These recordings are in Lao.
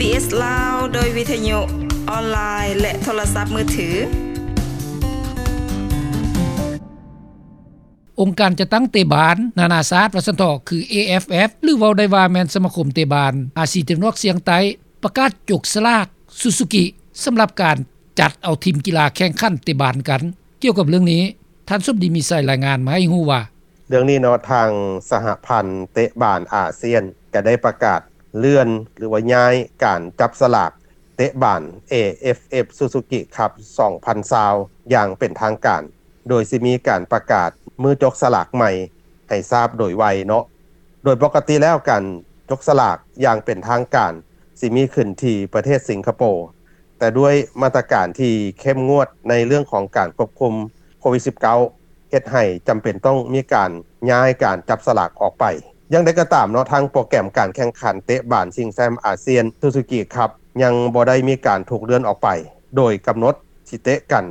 ເອສ ລາວ ໂດຍວິທະຍຸອອນລາຍ ແລະ ໂທລະສັບມືຖື. ອົງການຈັດຕັ້ງເຕະບານນານາຊາດ ວ່າຊັ້ນເຖາະ ຄື ເອ ເອັຟ ເອັຟ ຫຼື ເວົ້າໄດ້ວ່າແມ່ນສະມາຄົມເຕະບານອາຊີຕາເວັນອອກສຽງໃຕ້ ປະກາດຈົກສະຫຼາກຊູຊູກິ ສຳລັບການຈັດເອົາທີມກິລາແຂ່ງຂັນເຕະບານກັນ. ກ່ຽວກັບເລື່ອງນີ້ ທ່ານສົມດີ ມີໄຊ ລາຍງານມາໃຫ້ຮູ້ວ່າ, ເລື່ອງນີ້ເນາະ ທາງສະຫະພັນເຕະບານອາຊຽນ ກໍໄດ້ປະກາດເລື່ອນ ຫຼືວ່າຍ້າຍການຈັບສະຫຼາກເຕະບານ ເອ ເອັຟ ເອັຟ ຊູຊູກິ ຄັບ ສອງພັນຊາວ ຢ່າງເປັນທາງການ, ໂດຍຊິມີການປະກາດມື້ຈົກສະຫຼາກໃໝ່ໃຫ້ຊາບໂດຍໄວເນາະ. ໂດຍປົກກະຕິແລ້ວ ການຈົກສະຫຼາກຢ່າງເປັນທາງການຊິມີຂຶ້ນທີ່ປະເທດສິງກະໂປ, ແຕ່ດ້ວຍມາດຕະການທີ່ເຂັ້ມງວດໃນເລື່ອງຂອງການຄວບຄຸມໂຄວິດສິບເກົ້າ ເຮັດໃຫ້ຈຳເປັນຕ້ອງມີການຍ້າຍການຈັບສະຫຼາກອອກໄປ. ຢ່າງໃດກໍຕາມເນາະ, ທາງໂປຣແກຣມການແຂ່ງຂັນເຕະບານຊິງແຊ້ມອາຊຽນຊູຊູກິ ຄັບ ຍັງບໍ່ໄດ້ມີການຖືກເລື່ອນອອກໄປ, ໂດຍກຳນົດຊິເຕະກັນ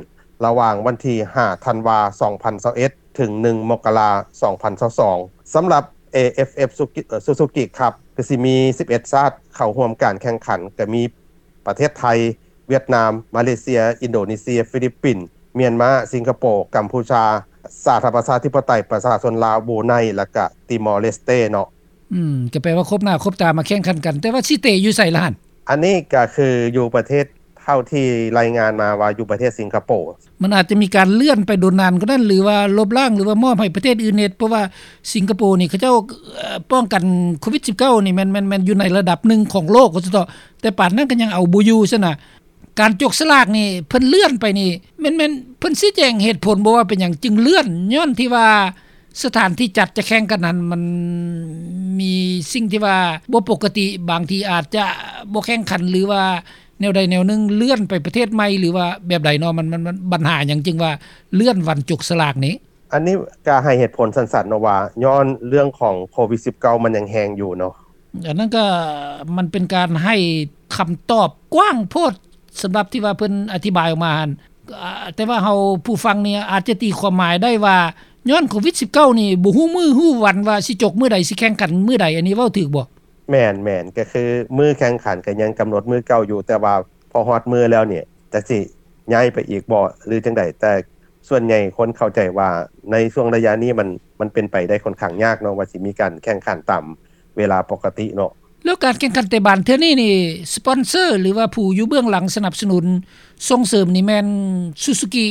ລະຫວ່າງວັນທີຫ້າ ທັນວາ ສອງພັນຊາວເອັດ ເຖິງ ໜຶ່ງ ມົກກະລາ ສອງພັນຊາວສອງ. ສຳລັບ ເອ ເອັຟ ເອັຟ ຊູຊູກິ ຄັບ ກໍຊິມີສິບເອັດຊາດເຂົ້າຮ່ວມການແຂ່ງຂັນ, ກໍມີ ປະເທດໄທ, ຫວຽດນາມ, ມາເລເຊຍ, ອິນໂດເນເຊຍ, ຟີລິບປິນ, ມຽນມາ, ສິງກະໂປ, ກຳພູຊາ, ສາທາລະນະລັດປະຊາທິປະໄຕປະຊາຊົນລາວ, ບຣູໄນ ແລະກະຕິມໍເລສເຕເນາະ. ອືມ ກໍແປວ່າຄົບໜ້າຄົບຕາມາແຂ່ງຂັນກັນ, ແຕ່ວ່າຊິເຕະຢູ່ໃສລະຫັ້ນ? ອັນນີ້ກໍຄືຢູ່ປະເທດ ເທົ່າທີ່ລາຍງານມາວ່າຢູ່ປະເທດສິງກະໂປ. ມັນອາດຈະມີການເລື່ອນໄປດົນນານກວ່ານັ້ນ ຫຼືວ່າລົບລ້າງ ຫຼືວ່າມອບໃຫ້ປະເທດອື່ນເຮັດ, ເພາະວ່າສິງກະໂປນີ້ເຂົາເຈົ້າ ເອີ ປ້ອງກັນໂຄວິດສິບເກົ້ານີ້ແມ່ນ ແມ່ນ ແມ່ນຢູ່ໃນລະດັບໜຶ່ງຂອງໂລກວ່າຊັ້ນເຖາະ, ແຕ່ປານນັ້ນກໍຍັງເອົາບໍ່ຢູ່ຊັ້ນນະ. ການຈົກສະຫຼາກນີ້ເພິ່ນເລື່ອນໄປນີ້ ແມ່ນ ແມ່ນເພິ່ນຊີ້ແຈງເຫດຜົນບໍ່ວ່າເປັນຫຍັງຈຶ່ງເລື່ອນ? ຍ້ອນທີ່ວ່າສະຖານທີ່ຈັດຈະແຂ່ງກັນນັ້ນ ມັນມີສິ່ງທີ່ວ່າບໍ່ປົກກະຕິ, ບາງທີອາດຈະບໍ່ແຂ່ງຂັນ ຫຼືວ່າແນວໃດແນວໜຶ່ງ ເລື່ອນໄປປະເທດໃໝ່ ຫຼືວ່າແບບໃດເນາະ? ມັນ ມັນ ມັນບັນຫາຫຍັງຈຶ່ງວ່າເລື່ອນວັນຈົກສະຫຼາກນີ້? ອັນນີ້ກໍໃຫ້ເຫດຜົນສັ້ນໆເນາະວ່າ ຍ້ອນເລື່ອງຂອງໂຄວິດສິບເກົ້າ ມັນຍັງແຮງຢູ່ເນາະ. ອັນນັ້ນກໍມັນເປັນການໃຫ້ຄຳຕອບກວ້າງໂພດ ສຳລັບທີ່ວ່າເພິ່ນອະທິບາຍອອກມາຫັ້ນ. ອາ ແຕ່ວ່າເຮົາຜູ້ຟັງນີ້ອາດຈະຕີຄວາມໝາຍໄດ້ວ່າ ຍ້ອນໂຄວິດສິບເກົ້ານີ້ບໍ່ຮູ້ມື້ຮູ້ວັນວ່າຊິຈົບມື້ໃດ ຊິແຂ່ງຂັນມື້ໃດ, ອັນນີ້ເວົ້າຖືກບໍ່? ແມ່ນໆ ກໍຄືມື້ແຂ່ງຂັນກໍຍັງກຳນົດມື້ເກົ່າຢູ່, ແຕ່ວ່າພໍຮອດມື້ແລ້ວນີ້ ຈັກຊິຍ້າຍໄປອີກບໍ່ ຫຼື ຈັ່ງໃດ, ແຕ່ ສ່ວນໃຫຍ່ຄົນເຂົ້າໃຈວ່າໃນຊ່ວງໄລຍະນີ້ມັນ ມັນເປັນໄປໄດ້ຄ່ອນຂ້າງຍາກເນາະ ວ່າຊິມີການແຂ່ງຂັນຕາມເວລາປົກກະຕິເນາະ. ແລ້ວການແຂ່ງຂັນເຕະບານເທື່ອນີ້ນີ້ ສະປອນເຊີ ຫຼືວ່າຜູ້ຢູ່ເບື້ອງຫຼັງສະໜັບສະໜູນສົ່ງເສີມນີ້ແມ່ນຊູຊູກິ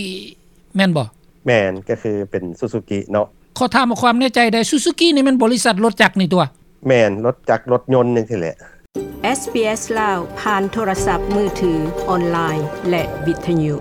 ແມ່ນບໍ່? ແມ່ນ, ກໍຄືເປັນຊູຊູກິເນາະ. ຂໍຖາມເອົາຄວາມແນ່ໃຈໄດ້, ຊູຊູກິນີ້ແມ່ນບໍລິສັດລົດຈັກນີ້ຕົວະ? ແມ່ນ, ລົດຈັກລົດຍົນຈັ່ງຊີ້ແຫຼະ. ເອສບີເອສ ລາວ ຜ່ານໂທລະສັບມືຖື, ອອນລາຍ ແລະ ວິທະຍຸ.